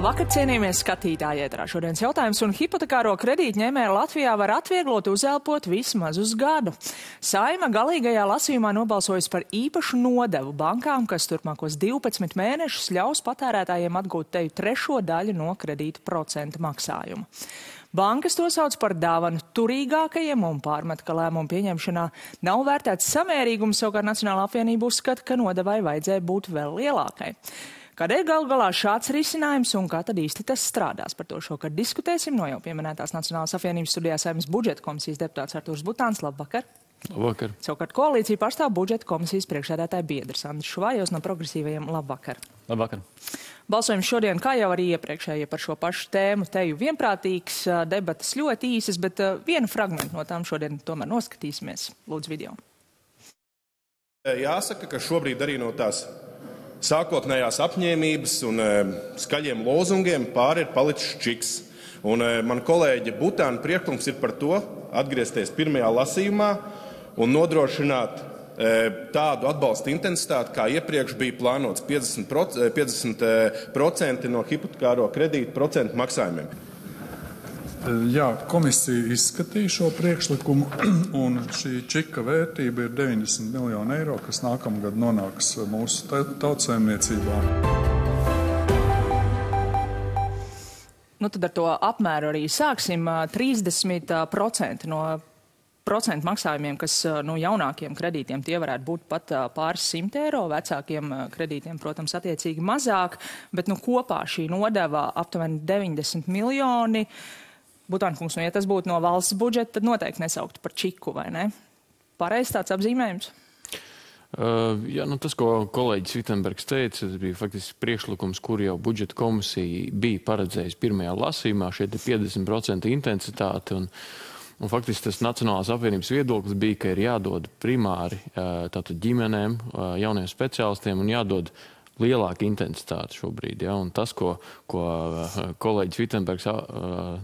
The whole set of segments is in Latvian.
Labvakar, cienījamies skatītāji ēterā. Šodienas jautājums un hipotekāro kredītņēmēju Latvijā var atvieglot uzelpot vismaz uz gadu. Saeima galīgajā lasījumā nobalsojas par īpašu nodevu bankām, kas turpmākos 12 mēnešus ļaus patērētājiem atgūt teju trešo daļu no kredīta procenta maksājuma. Bankas to sauc par dāvanu turīgākajiem un pārmet, ka lēmumu pieņemšanā nav vērtēts samērīgums, savukārt Nacionālā apvienība uzskata, ka nodevai vajadzēja būt vēl lielākai. Kādēļ galu galā šāds risinājums un kā tad īsti tas strādās? Par to šokar diskutēsim no jau pieminētās Nacionālās apvienības studijā Saeimas budžeta komisijas deputāts Artūrs Butāns. Labvakar! Labvakar! Savukārt koalīcija pārstāv budžeta komisijas priekšsēdētāja biedrs Andris Šuvājos no progresīvajiem. Labvakar! Labvakar! Balsojums šodien, kā jau arī iepriekšējie par šo pašu tēmu, teju vienprātīgs, debatas ļoti īsas, bet vienu fragmentu no tām šodien tomēr noskatīsimies. Lūdzu video. Jāsaka, ka šobrīd arī no tās sākotnējās apņēmības un skaļiem lozungiem pāri ir palicis čiks. Un man kolēģe Butāna priekšlikums ir par to atgriezties pirmajā lasījumā un nodrošināt tādu atbalsta intensitāti, kā iepriekš bija plānots 50% no hipotekāro kredītu procentu maksājumiem. Jā, komisija izskatīja šo priekšlikumu, un šī čika vērtība ir 90 miljoni eiro, kas nākamgad nonāks mūsu tautsaimniecībā. Tad ar to apmēru arī sāksim. 30% no procentu maksājumiem, kas jaunākiem kredītiem tie varētu būt pat pāris 100 eiro, vecākiem kredītiem, protams, attiecīgi mazāk, bet kopā šī nodeva aptuveni 90 miljoni. Butānkungs, ja tas būtu no valsts budžeta, tad noteikti nesauktu par čiku, vai ne? Pareizi tāds apzīmējums? Jā, tas, ko kolēģis Vitenbergs teica, tas bija faktiski priekšlikums, kur jau budžeta komisija bija paredzējusi pirmajā lasījumā, šeit ir 50% intensitāte, un faktiski tas Nacionālās apvienības viedoklis bija, ka ir jādod primāri tātad ģimenēm, jauniem speciālistiem un jādod lielāka intensitāte šobrīd. Ja? Un tas, ko kolēģis Vitenbergs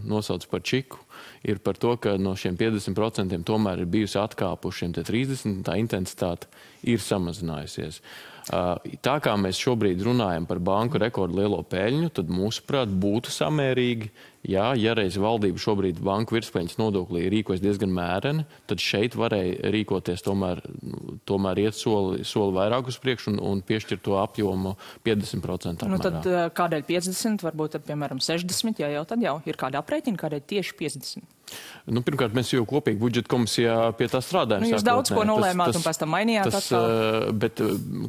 nosauc par čiku, ir par to, ka no šiem 50% tomēr ir bijusi atkāpušiem 30%, tā intensitāte ir samazinājusies. Tā kā mēs šobrīd runājam par banku rekordu lielo peļņu, tad mūsuprāt būtu samērīgi, ja reiz valdība šobrīd banku virspeļņas nodoklī rīkojas diezgan mēreni, tad šeit varēja rīkoties tomēr iet soli vairāk uz priekšu un piešķirt to apjomu 50% apmērā. Tad kādēļ 50, varbūt tad, piemēram, 60, tad jau ir kāda aprēķina, kādēļ tieši 50? Pirmkārt, mēs jau kopīgi budžeta komisijā pie tā strādājam. Jūs daudz ko nolēmāt un pēc tam mainījāt atkal? Bet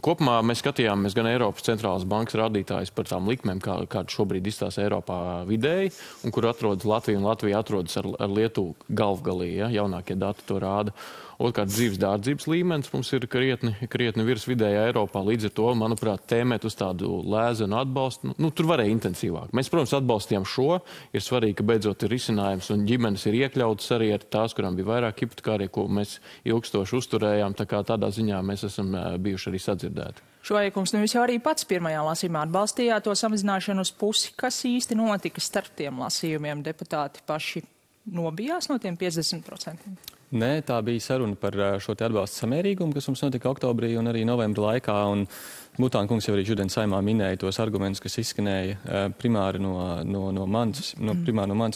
kopumā mēs skatījāmies gan Eiropas centrālās bankas rādītājus par tām likmēm, kāda šobrīd izstāsta Eiropā vidēji, un kur atrodas Latvija, un Latvija atrodas ar Lietuvu galvgalī, jaunākie dati to rāda. Otrkārt, dzīves dārdzības līmenis mums ir krietni virs vidējā Eiropā. Līdz ar to, manuprāt, tēmēt uz tādu lēzenu atbalstu, tur varēja intensīvāk. Mēs, protams, atbalstījām šo. Ir svarīgi, ka beidzot ir risinājums un ģimenes ir iekļautas arī ar tās, kurām bija vairāk hipotekārie, ko mēs ilgstoši uzturējām. Tā kā tādā ziņā mēs esam bijuši arī sadzirdēti. Šuvājkungs, jūs jau arī pats pirmajā lasījumā atbalstījāt to samazināšanu uz pusi. Kas īsti notika starp tiem lasījumiem? Deputāti paši nobijās no tiem 50%? Nē, tā bija saruna par šo te atbalstu samērīgumu, kas mums notika oktobrī un arī novembra laikā. Un Butāna kungs jau arī šodien Saeimā minēja tos argumentus, kas izskanēja primāri no manis un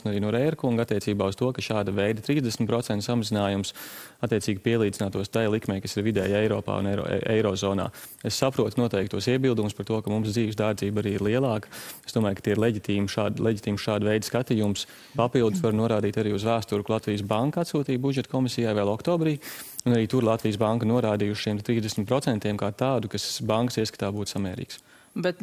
arī no Rēra kunga attiecībā uz to, ka šāda veida 30% samazinājums attiecīgi pielīdzinātos tai likmei, kas ir vidēji Eiropā un Eirozonā. Es saprotu noteikti tos iebildumus par to, ka mums dzīves dārdzība arī ir lielāka. Es domāju, ka tie ir leģitīmi šāda veida skatījums. Papildus var norādīt arī uz vēsturi, ka Latvijas banka atsūtīja budžeta komisijai vēl oktobrī. Un arī tur Latvijas banka norādījuši šiem 30% kā tādu, kas bankas ieskatā būtu samērīgs. Bet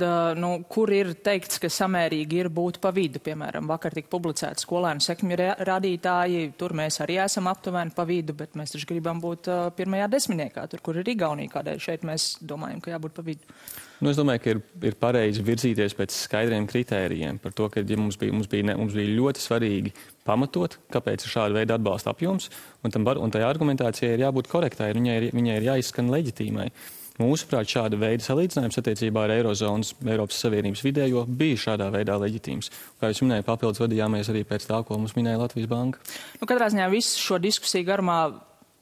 kur ir teikts, ka samērīgi ir būt pa vidu? Piemēram, vakar tika publicēti skolēnu sekmju rādītāji, tur mēs arī esam aptuveni pa vidu, bet mēs taču gribam būt pirmajā desmitniekā, tur, kur ir Igaunija, kādēļ šeit mēs domājam, ka jābūt pa vidu. Es domāju, ka ir pareizi virzīties pēc skaidriem kritērijiem par to, ka mums bija ļoti svarīgi pamatot, kāpēc ir šāda veida atbalsta apjoms, un tai argumentācijai ir jābūt korektai, viņai ir jāizskan leģitīmai. Mūsuprāt, šāda veida salīdzinājums attiecībā ar Eirozonas Eiropas Savienības vidējo bija šādā veidā leģitīms. Kā jūs minēju, papildus vadījāmies arī pēc tā, ko mums minēja Latvijas banka. Katrā ziņā visu šo diskusiju garumā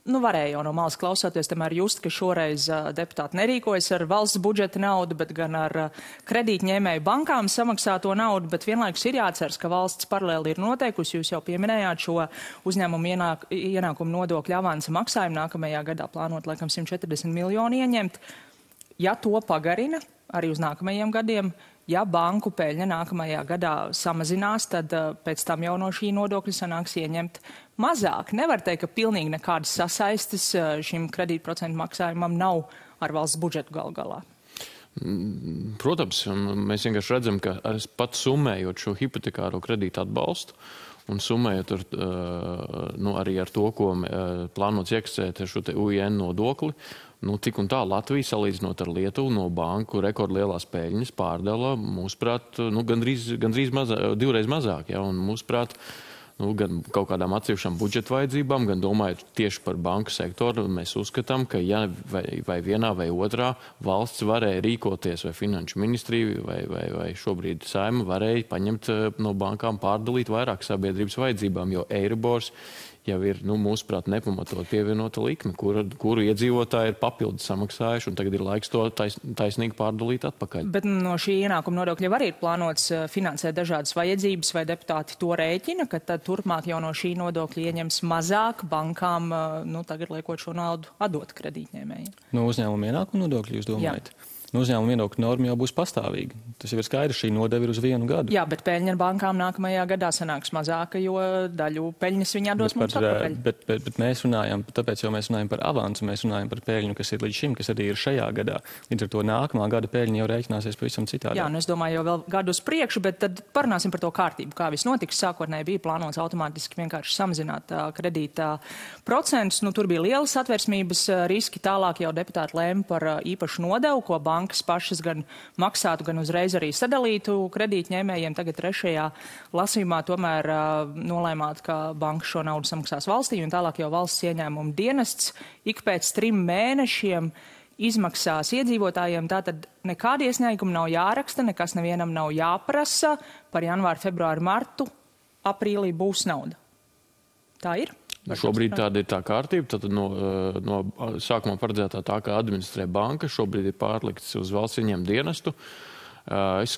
varēja jau no malas klausoties, tomēr just, ka šoreiz deputāti nerīkojas ar valsts budžeta naudu, bet gan ar kredītņēmēju bankām samaksāto naudu, bet vienlaikus ir jāatceras, ka valsts paralēli ir noteikusi, jūs jau pieminējāt šo uzņēmumu ienākumu nodokļu avansa maksājumu nākamajā gadā plānot laikam 140 miljonu ieņemt. Ja to pagarina arī uz nākamajiem gadiem, ja banku peļņa nākamajā gadā samazinās, tad pēc tam jau no šī nodokļa sanāks ieņemt mazāk. Nevar teikt, ka pilnīgi nekādas sasaistes šim kredītprocentu maksājumam nav ar valsts budžetu galu galā. Protams, mēs vienkārši redzam, ka pat summējot šo hipotekāro kredītu atbalstu un summējot arī ar to, ko plānots iekasēt ar šo te UIN nodokli, cik un tā Latvija, salīdzinot ar Lietuvu, no banku rekordlielās peļņas pārdala, mūsuprāt, divreiz mazāk, ja, un mūsuprāt, gan kaut kādām atsevišķām budžeta vajadzībām, gan domājot tieši par banku sektoru, mēs uzskatām, ka ja vai vienā vai otrā valsts varēja rīkoties, vai finanšu ministrija, vai šobrīd Saeima varēja paņemt no bankām pārdalīt vairāk sabiedrības vajadzībām, jo Eiribors jau ir, mūsuprāt, nepamatot pievienota likme, kuru iedzīvotāji ir papildus samaksājuši, un tagad ir laiks to taisnīgi pārdalīt atpakaļ. Bet no šī ienākuma nodokļa jau arī ir plānots finansēt dažādas vajadzības, vai deputāti to rēķina, ka tad turpmāk jau no šī nodokļa ieņems mazāk bankām, tagad liekot šo naudu atdot kredītņēmējiem? No uzņēmuma ienākuma nodokļa jūs domājat? Jā. Uzņēmuma ienākuma norma jau būs pastāvīga. Tas jau ir skaidrs, šī nodeva ir uz 1 gadu. Jā, bet peļņa ar bankām nākamajā gadā sanāks mazāka, jo daļu peļņas viņi atdos mums atpakaļ. Bet mēs runājam, tāpēc jau mēs runājam par avansu, mēs runājam par peļņu, kas ir līdz šim, kas arī ir šajā gadā. Līdz ar to nākamā gada peļņa jau rēķināsies pavisam citādi. Jā, es domāju, jau vēl gadu uz priekšu, bet tad parunāsim par to kārtību, kā viss notiks. Sākotnēji bija plānots automātiski vienkārši samazināt kredītā procentus. Tur bija lielas atversmības riski, tālāk jau deputāti lēma par īpašu nodevu, ko bankas pašas gan maksātu, gan uzreiz arī sadalītu kredītņēmējiem. Tagad 3. lasījumā tomēr nolēmāt, ka banka šo naudu samaksās valstī, un tālāk jau valsts ieņēmuma dienests ik pēc 3 mēnešiem izmaksās iedzīvotājiem. Tātad nekādi iesniegumi nav jāraksta, nekas nevienam nav jāprasa. Par janvāru, februāru, martu, aprīlī būs nauda. Tā ir? Šobrīd tāda ir tā kārtība, tad no sākumā paredzētā tā, kā administrē banka, šobrīd ir pārlikts uz valsts ieņēmuma dienestu. Es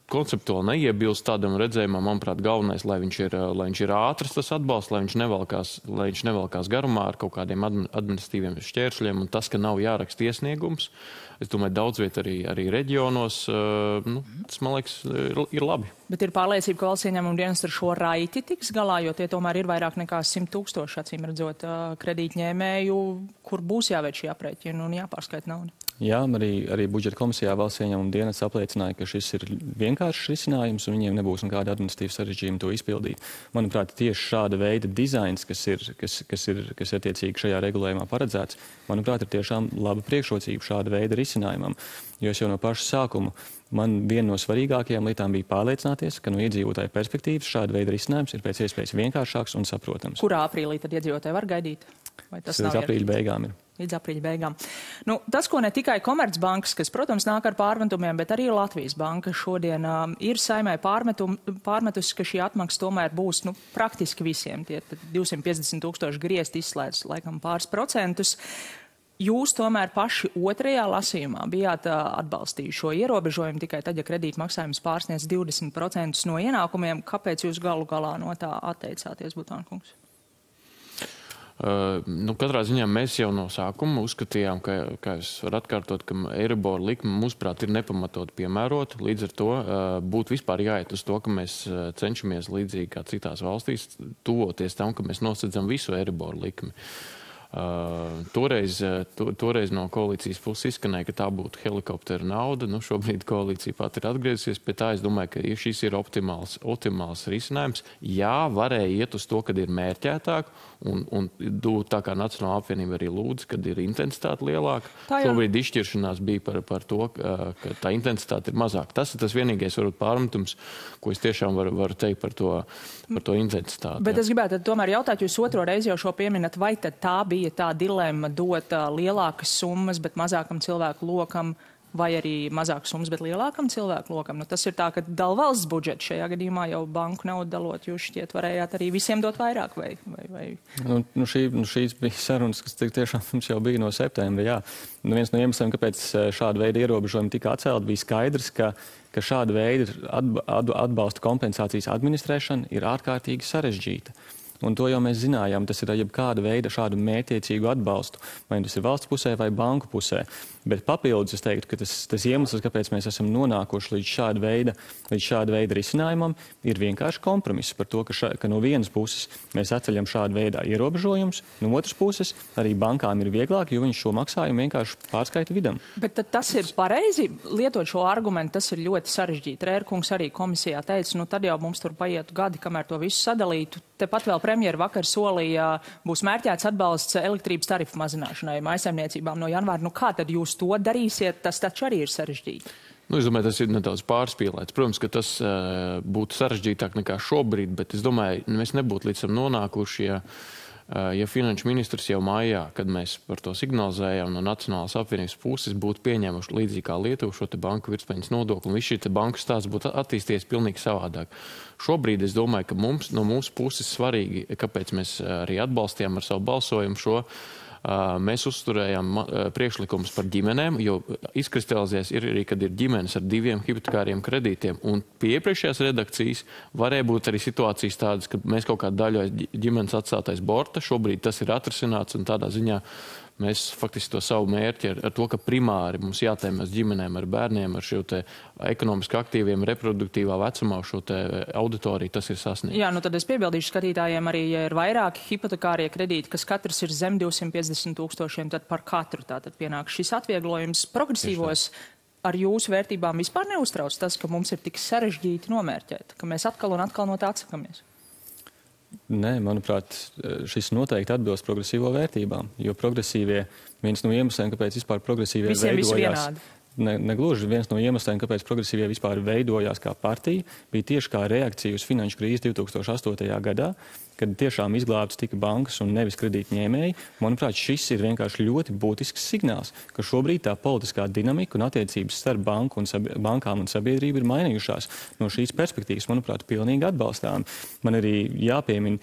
konceptuāli neiebilst tādam redzējumam, manuprāt, galvenais, lai viņš ir ātrs tas atbalsts, lai viņš nevelkās garumā ar kaut kādiem administratīviem šķēršļiem, un tas, ka nav jāraksta iesniegums. Es domāju, daudz viet arī reģionos, tas, man liekas, ir labi. Bet ir pārliecība, ka valsts ieņēmuma dienests ar šo raiti tiks galā, jo tie tomēr ir vairāk nekā 100 000, acīm redzot, kredītņēmēju, kur būs jāveic šī aprēķina un jāpārskaita nauda. Jā, arī budžeta komisijā valsts ieņēmuma dienests apliecināja, ka šis ir vienkāršs risinājums un viņiem nebūs nekāda administratīva sarežģījuma to izpildīt. Manuprāt, tieši šāda veida dizains, kas attiecīgi šajā regulējumā paredzēts, manuprāt, ir tiešām laba priekšrocība šāda veida risinājumam. Jo es jau no paša sākuma, man viena no svarīgākajām lietām bija pārliecināties, ka no iedzīvotāju perspektīvas šāda veida risinājums ir pēc iespējas vienkāršāks un saprotams. Kurā aprīlī tad iedzīvotāji var gaidīt? Vai tas līdz aprīļa beigām ir? Līdz aprīļa beigām. Tas, ko ne tikai Komercbankas, kas, protams, nāk ar pārmetumiem, bet arī Latvijas banka šodien ir Saeimai pārmetusi, ka šī atmaksa tomēr būs praktiski visiem. Tie 250 000 griezti izslēdz laikam pāris procentus. Jūs tomēr paši 2. lasījumā bijāt atbalstījuši šo ierobežojumu tikai tad, ja kredīta maksājums pārsniedz 20% no ienākumiem. Kāpēc jūs galu galā no tā atteicāties, Butānkungs? Katrā ziņā mēs jau no sākuma uzskatījām, kā es varu atkārtot, ka Eiribor likme, mūsuprāt, ir nepamatot piemērota. Līdz ar to būtu vispār jāiet uz to, ka mēs cenšamies līdzīgi kā citās valstīs tuvoties tam, ka mēs nosedzam visu Eiribor likmi. Toreiz no koalīcijas puses izskanēja, ka tā būtu helikoptera nauda. Šobrīd koalīcija pat ir atgriezusies pie tā. Es domāju, ka šis ir optimāls risinājums. Jā, varēja iet uz to, kad ir mērķētāk, un tā kā Nacionālā apvienība arī lūdz, kad ir intensitāte lielāka. Šobrīd izšķiršanās bija par to, ka tā intensitāte ir mazāka. Tas ir tas vienīgais varbūt pārmetums, ko es tiešām varu teikt par to intensitāti. Bet es gribētu tomēr jautāt, jūs 2. reizi jau šo pieminat, vai tad tā bija tā dilemma dot lielākas summas, bet mazākam cilvēku lokam vai arī mazākas summas, bet lielākam cilvēku lokam. Nu, tas ir tā, ka dala valsts budžets šajā gadījumā jau banku naudu dalot, jūs šķiet varējāt arī visiem dot vairāk vai? Šīs bija sarunas, kas tiešām mums jau bija no septembra, jā. Viens no iemesliem, kāpēc šāda veida ierobežojumi tika atcelti, bija skaidrs, ka šāda veida atbalsta kompensācijas administrēšana ir ārkārtīgi sarežģīta. Un to jau mēs zinājām, tas ir jebkāda veida šādu mērķiecīgu atbalstu, vai tas ir valsts pusē vai banku pusē. Bet papildus es teiktu, ka tas iemesls, kāpēc mēs esam nonākuši līdz šāda veida risinājumam, ir vienkārši kompromiss par to, ka no vienas puses mēs atceļam šādu veidā ierobežojumus, no otras puses arī bankām ir vieglāk, jo viņi šo maksājumu vienkārši pārskaita vidam. Bet tas ir pareizi lietot šo argumentu, tas ir ļoti sarežģīti. Rērkungs arī komisijā teica, nu tad jau mums tur paietu gadi, kamēr to visu sadalītu. Tepat vēl premjera vakar solīja, būs mērķēts atbalsts elektrības tarifu mazināšanai mājsaimniecībām no janvāra. Nu kā tad jūs to darīsiet? Tas taču arī ir sarežģīti. Nu, es domāju, tas ir nedaudz pārspīlēts. Protams, ka tas būtu sarežģītāk nekā šobrīd, bet es domāju, mēs nebūtu līdz tam nonākuši, ja finanšu ministrs jau mājā, kad mēs par to signalizējām no Nacionālās apvienības puses, būtu pieņēmuši līdzīgi kā Lietuva šo te banku virspeļņas nodokli, un viss šī te banku stāsts būtu attīstījies pilnīgi savādāk. Šobrīd es domāju, ka no mūsu puses svarīgi, kāpēc mēs arī atbalstījām ar savu balsojumu šo, mēs uzturējām priekšlikumus par ģimenēm, jo izkristalizēs ir arī, kad ir ģimenes ar 2 hipotekāriem kredītiem. Un pie iepriekšējās redakcijas varēja būt arī situācijas tādas, ka mēs kaut kādu daļu ģimenes atstātais borta. Šobrīd tas ir atrisināts un tādā ziņā mēs faktiski to savu mērķi ar to, ka primāri mums jātēmēs ģimenēm ar bērniem, ar šo te ekonomiski aktīviem, reproduktīvā vecumā šo te auditoriju, tas ir sasniegts. Jā, nu tad es piebildīšu skatītājiem arī, ja ir vairāki hipotekārie kredīti, kas katrs ir zem 250 000, tad par katru tātad pienāk šis atvieglojums progresīvos. Ar jūsu vērtībām vispār neuztrauc tas, ka mums ir tik sarežģīti nomērķēt, ka mēs atkal un atkal no tā atsakamies? Nē, manuprāt, šis noteikti atbilst progresīvo vērtībām, jo progresīvie, viens no iemesliem, kāpēc vispār progresīvie veidojās, negluži viens no iemesliem, kāpēc progresīvie vispār veidojās kā partija, bija tieši kā reakcija uz finanšu krīzi 2008. gadā, kad tiešām izglābtas tika bankas un nevis kredītņēmēji. Manuprāt, šis ir vienkārši ļoti būtisks signāls, ka šobrīd tā politiskā dinamika un attiecības starp bankām un sabiedrību ir mainījušās. No šīs perspektīvas, manuprāt, pilnīgi atbalstām. Man arī jāpiemina,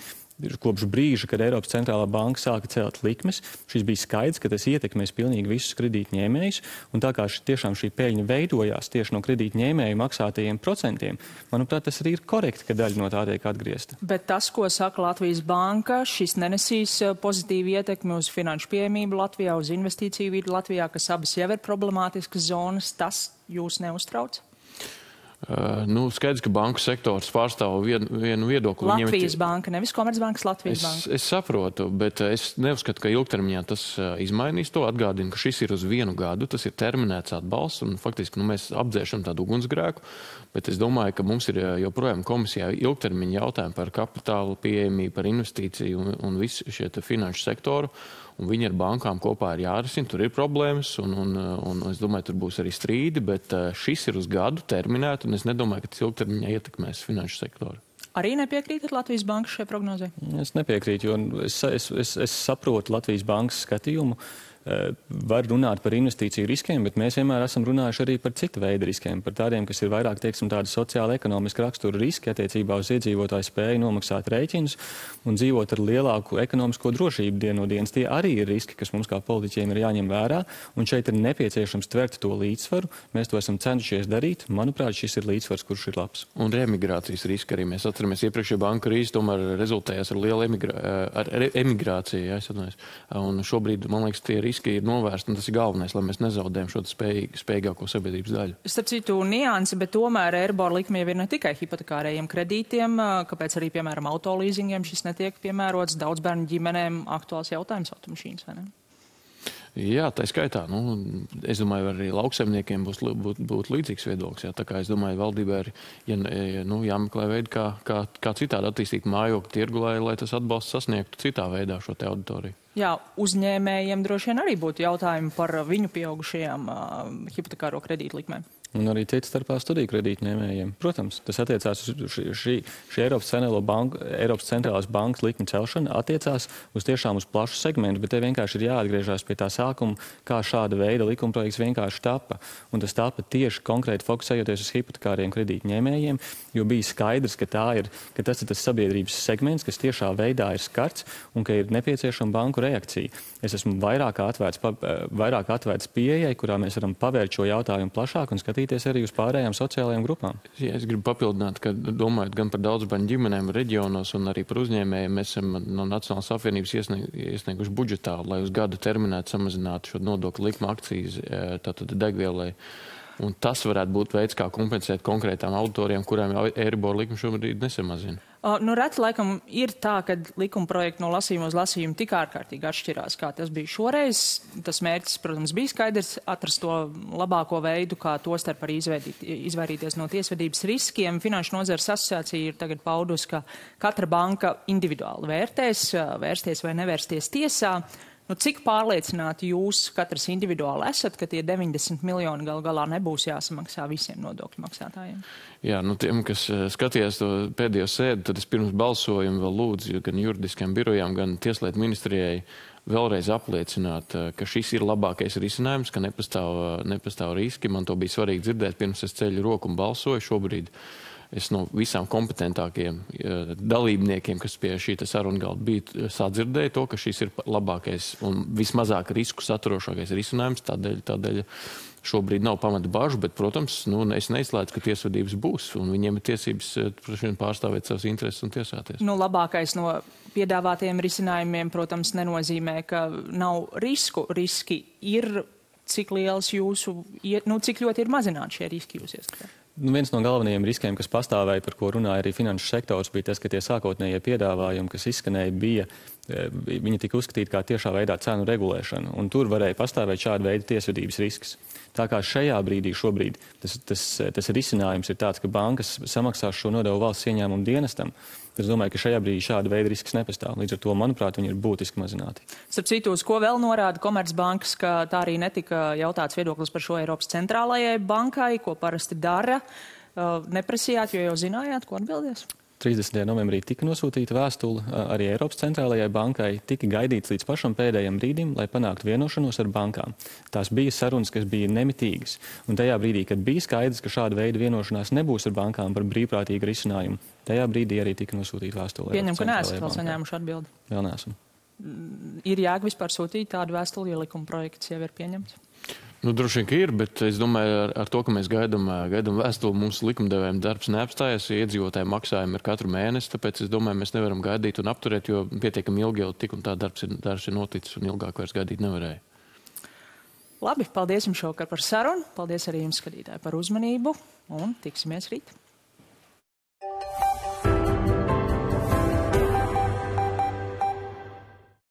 kopš brīža, kad Eiropas centrālā banka sāka celt likmes, šis bija skaidrs, ka tas ietekmēs pilnīgi visus kredītņēmējus, un tā kā tiešām šī peļņa veidojās tieši no kredītņēmēju maksātajiem procentiem, manuprāt, tas arī ir korekti, ka daļa no tā tiek atgriezta. Bet tas, ko saka Latvijas banka, šis nenesīs pozitīvu ietekmi uz finanšu pieejamību Latvijā, uz investīciju vidi Latvijā, kas abas jau ir problemātiskas zonas, tas jūs neuztrauc? Skaidrs, ka banku sektors pārstāv vienu viedokli. Latvijas banka, nevis Komercbankas Latvijas banka. Es saprotu, bet es neuzskatu, ka ilgtermiņā tas izmainīs to. Atgādinu, ka šis ir uz 1 gadu, tas ir terminēts atbalsts, un faktiski mēs apdzēšam tādu ugunsgrēku, bet es domāju, ka mums ir joprojām komisijā ilgtermiņa jautājumi par kapitālu pieejamību, par investīciju un visu šie finanšu sektoru. Un viņi ar bankām kopā ir jārisina, tur ir problēmas, un es domāju, tur būs arī strīdi, bet šis ir uz gadu terminēt, un es nedomāju, ka tas ilgtermiņā ietekmēs finanšu sektoru. Arī nepiekrītat Latvijas bankas šai prognozei? Es nepiekrītu, jo es saprotu Latvijas bankas skatījumu. Var runāt par investīciju riskiem, bet mēs vienmēr esam runājuši arī par citu veidu riskiem, par tādiem, kas ir vairāk, teiksim, tādi sociāli ekonomiski rakstura riski attiecībā uz iedzīvotāju spēju nomaksāt rēķinus un dzīvot ar lielāku ekonomisko drošību dienu no dienas. Tie arī ir riski, kas mums kā politiķiem ir jāņem vērā, un šeit ir nepieciešams tvert to līdzsvaru. Mēs to esam cenšies darīt. Manuprāt, šis ir līdzsvars, kurš ir labs. Un reemigrācijas riski arī mēs atceramies. Iepriekšējā banku krīze tomēr rezultējās ar lielu emigrāciju, ja, un šobrīd, man liekas, tie riski ir novērsti, un tas ir galvenais, lai mēs nezaudējam šo spējīgāko sabiedrības daļu. Starp citu niansi, bet tomēr Eiribor likme jau ir ne tikai hipotekārējiem kredītiem, kāpēc arī, piemēram, autolīzingiem šis netiek piemērots, daudz bērnu ģimenēm aktuāls jautājums automašīnas, vai ne? Jā, tā skaitā. Es domāju, arī lauksaimniekiem būtu līdzīgs viedoklis. Jā. Tā kā es domāju, valdībā ir jāmeklē veidi, kā citādi attīstīt mājokļu tirgu, lai tas atbalsts sasniegtu citā veidā šo te auditoriju. Jā, uzņēmējiem droši vien arī būtu jautājumi par viņu pieaugušajām hipotekāro kredītu likmēm. Un arī cits starpā studiju kredītņēmējiem. Protams, tas attiecās uz šī Eiropas centrālās bankas likmi celšana, attiecās tiešām uz plašu segmentu, bet te vienkārši ir jāatgriežās pie tā sākuma, kā šāda veida likumprojekts vienkārši tapa. Un tas tapa tieši konkrēti fokusējoties uz hipotekāriem kredītņēmējiem, jo bija skaidrs, ka tas ir tas sabiedrības segments, kas tiešā veidā ir skarts un ka ir nepieciešama banku reakcija. Es esmu vairāk atvērts pieejai, kurā mēs varam pavērt šo jautājumu plašāk un skatīties arī uz pārējām sociālajām grupām. Ja, es gribu papildināt, ka domājot gan par daudzbērnu ģimenēm reģionos un arī par uzņēmējiem, mēs esam no Nacionālās apvienības iesnieguši budžetā, lai uz gadu terminētu samazinātu šo nodokļu likmu akcijas tātad degvielai. Un tas varētu būt veids, kā kompensēt konkrētām auditoriem, kurām Eiribor likme šobrīd nesamazina. Reti laikam ir tā, ka likuma projekti no lasījuma uz lasījumu tik ārkārtīgi atšķirās, kā tas bija šoreiz. Tas mērķis, protams, bija skaidrs atrast to labāko veidu, kā tostarp arī izvairīties no tiesvedības riskiem. Finanšu nozares asociācija ir tagad paudusi, ka katra banka individuāli vērsties vai nevērsties tiesā. Cik pārliecināti jūs katrs individuāli esat, ka tie 90 miljoni gal galā nebūs jāsamaksā visiem nodokļu maksātājiem? Jā, tiem, kas skatījās to pēdējo sēdi, tad es pirms balsojumu vēl lūdzu gan juridiskajām birojām, gan Tieslietu ministrijai vēlreiz apliecināt, ka šis ir labākais risinājums, ka nepastāv riski. Man to bija svarīgi dzirdēt, pirms es ceļu roku un balsoju. Šobrīd es no visām kompetentākajiem dalībniekiem, kas pie šī saruna galda bija, sadzirdēju to, ka šis ir labākais un vismazāk risku saturošākais risinājums. Tādēļ šobrīd nav pamata bažu, bet, protams, es neizslēdzu, ka tiesvedības būs, un viņiem ir tiesības pārstāvēt savas intereses un tiesāties. Labākais no piedāvātiem risinājumiem, protams, nenozīmē, ka nav risku. Riski ir, cik liels cik ļoti ir mazināti šie riski jūs ieskatāt? Viens no galvenajiem riskiem, kas pastāvēja, par ko runāja arī finanšu sektors, bija tas, ka tie sākotnējie piedāvājumi, kas izskanēja, viņi tika uzskatīti kā tiešā veidā cenu regulēšana, un tur varēja pastāvēt šāda veida tiesvedības risks. Tā kā šajā brīdī šobrīd tas risinājums ir tāds, ka bankas samaksās šo nodevu valsts ieņēmumu dienestam. Es domāju, ka šajā brīdī šāda veida risks nepastāv. Līdz ar to, manuprāt, viņi ir būtiski mazināti. Starp citu, uz ko vēl norāda Komercbankas, ka tā arī netika jautāts viedoklis par šo Eiropas centrālajai bankai, ko parasti dara. Neprasījāt, jo jau zinājāt, ko atbildēs? 30. novembrī tika nosūtīta vēstule arī Eiropas centrālajai bankai, tika gaidīts līdz pašam pēdējiem brīdim, lai panāktu vienošanos ar bankām. Tās bija sarunas, kas bija nemitīgas. Un tajā brīdī, kad bija skaidrs, ka šāda veida vienošanās nebūs ar bankām par brīvprātīgu risinājumu, tajā brīdī arī tika nosūtīta vēstule. Pieņem, ka neesat vēl saņēmuši atbildi. Vēl neesam. Ir jēga vispār sūtīt tādu vēstuli, ja likuma projekts jau ir pieņemts? Droši vien, ka ir, bet es domāju, ar to, ka mēs gaidām vēstuli, mums likumdevējiem darbs neapstājas, iedzīvotāju maksājumi ir katru mēnesi, tāpēc es domāju, mēs nevaram gaidīt un apturēt, jo pietiekami ilgi jau tik un tā darbs ir noticis un ilgāk vairs gaidīt nevarēja. Labi, paldies jums šovakar par sarunu, paldies arī jums, skatītāji, par uzmanību un tiksimies rīt.